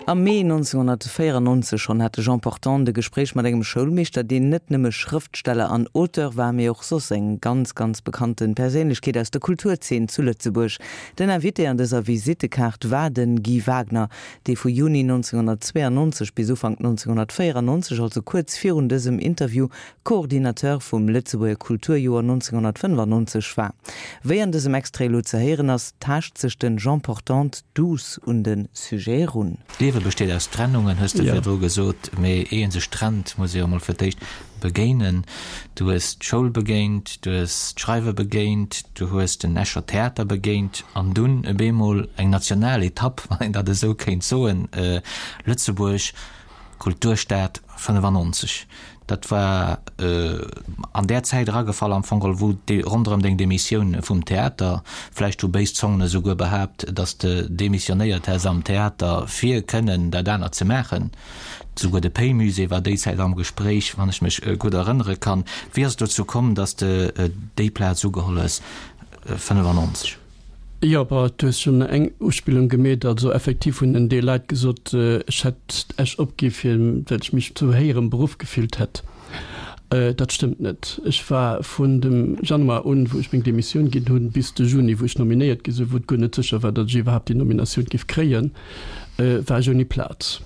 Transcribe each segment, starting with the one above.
Am Mee 1994 schonn hat de Jean Portante e Gespréich mat engem Schoulmeeschter, deen net nëmme Schrëftsteller an Auteur war, mee och soss eng ganz, ganz bekannte Perséinlechkeet aus der Kulturzeen zu Lëtzebuerg. Den Invité an dëser Visittekaart war de Guy Wagner, dee vu Juni 1992 bis Ufank 1994, also kuerz virun dësem Interview, Coordinateur vum Lëtzebuerger Kulturjoer 1995 war. Wéi an dësem Extrait elo ze héieren ass, taascht sech den Jean Portante douce un de Sujet erun. D'Liewe besteet aus Trennungen, hues de virdru gesot. Mee ier ee sech trennt, muss ee jo mol fir d'éischt begéinen. Du hues d'Schoul begéint, du hues d'Schreiwe begéint, du hues den Escher Theater begéint an dunn e beemol eng national Etapp, wann een dat esou kéint soen, Lëtzebuerg, Kulturstad 95. Dat war an där Zäit eragefall am Fong geholl, wou déi ronderëm deng Demissioun vum Theater, vläicht hu béis Zongen esouguer behaapt, datt s de demissionéiert häss am Theater, fir kënnen dat anert ze maachen. Souguer de Pei-Musée war déi Zäit am Gespréich, wann ech mech gutt erënnere kann. Wéi ass et dozou komm, datt s de déi Plaz ugeholl hues 95? Jo, bon, du hues schonn eng Uspillung gemeet. Also effektiv hunn en Deel Leit gesot, ech hätt Esch opgi fir well ech mech zu héierem Beruff gefillt hätt. Dat stëmmt net. Ech war vun dem Januar un, wou ech meng Demissioun ginn hunn, bis de Juni, wou ech nominéiert gi sinn, wou et guer net sécher war, datt ech iwwerhaapt déi Nominatioun géif kréien, war ech ouni Plaz.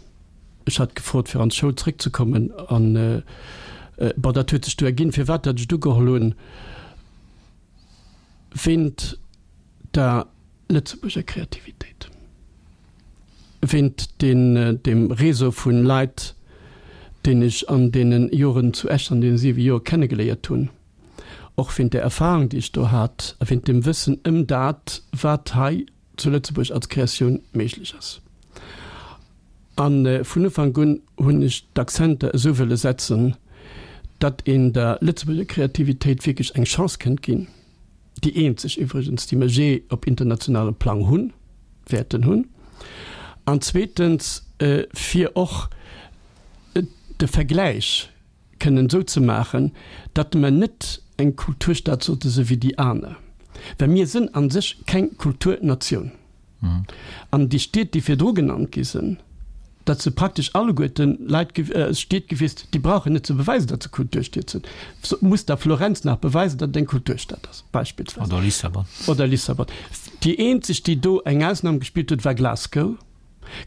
Ech hat gefrot, fir an d'Schoul zréckzekommen an, bon, dat huet sech du erginn, firwat datt ech et ugeholl hunn. Wéint der Lëtzebuerger Kreativitéit, wéint deem Réseau vu Leit, deen ech an deene Joren zu Esch, an deene siwe Joer kennegeléiert hunn, och wéint der Erfahrung, déi ech do hat, a wéint dem Wëssen ëm dat, wat hei zu Lëtzebuerg als Kreatioun méiglech ass. A vun Ufank un hunn ech d'Akzenter esou wëlle setzen, datt een der Lëtzebuerger Kreativitéit wierklech eng Chance kënnt ginn, déi eenzeg iwwregens, déi mer jee op internationalem Plang hunn, wäerten hunn, an zweetens fir och de Vergläich kënnen esou ze maachen, datt mer net eng Kulturstad sollte si wéi déi aner, well mir sinn a sech keng Kulturnatioun. An déi Stied, déi virdru genannt gi sinn, dat si praktesch alleguerte Leit, Stied gewiescht, déi brauchen net ze beweisen, datt se Kulturstied sinn. Muss da Florenz nach beweisen, datt et eng Kulturstad ass, beispillsweis? Oder Lissabon. Oder Lissabon. Déi eenzeg, déi do eng Ausnam gespillt huet, war Glasgow.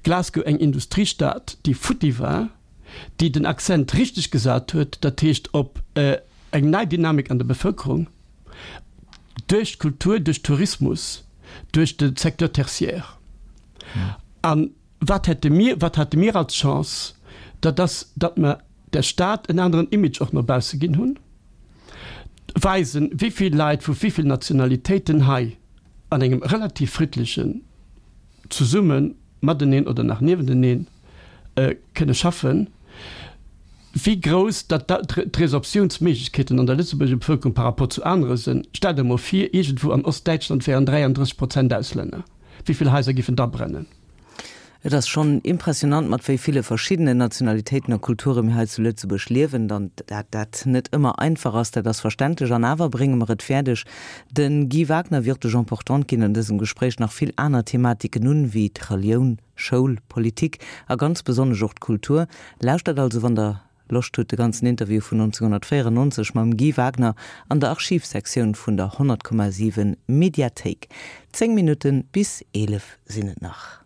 Glasgow, eng Industriestad, déi futti war. déi den Accent richteg gesat huet, dat heescht op eng nei Dynamik an der Bevëlkerung duerch d'Kultur, duerch Tourismus, duerch de Secteur tertiaire. A wat hätte mir, wat hate mir als Chance? Dat ass, datt mer der Stad en aneren Image och no bausse ginn hunn, weisen, wéi vill Leit vu wéi vill Nationalitéiten hei an engem relativ friddlechen zesumme mateneen oder nach niewenteneen kënne schaffen, wéi grouss datt d'Resorptiounsméiglechkeeten an der Lëtzebuerger Bevëlkerung par rapport zu anere sinn. Stellt der emol vir, iergendwou an Ostdäitschland wären 33 Prozent Auslänner, wéi vill Haiser giffen da brennen? Et ass schonn impressionant, mat wéi ville verschiddenen Nationalitéiten a Kulture mir hei zu Lëtzebuerg liewen. Dann dat dat net ëmmer einfach ass, dat ass verständlech. An awer brénge mer et fäerdeg, De Guy Wagner wéi och de Jean Portante ginn an dësem Gespréich nach vill aner Thematiken un, wéi d'Relioun, Schoul, Politik a ganz besonnesch och d'Kultur. Lauschtert also, wann der Loscht hutt, de ganzen Interview vun 1994 mam Guy Wagner an der Archivsektioun vun der 100,7 Mediathéik. 10 Minutten bis 11 sinn et nach.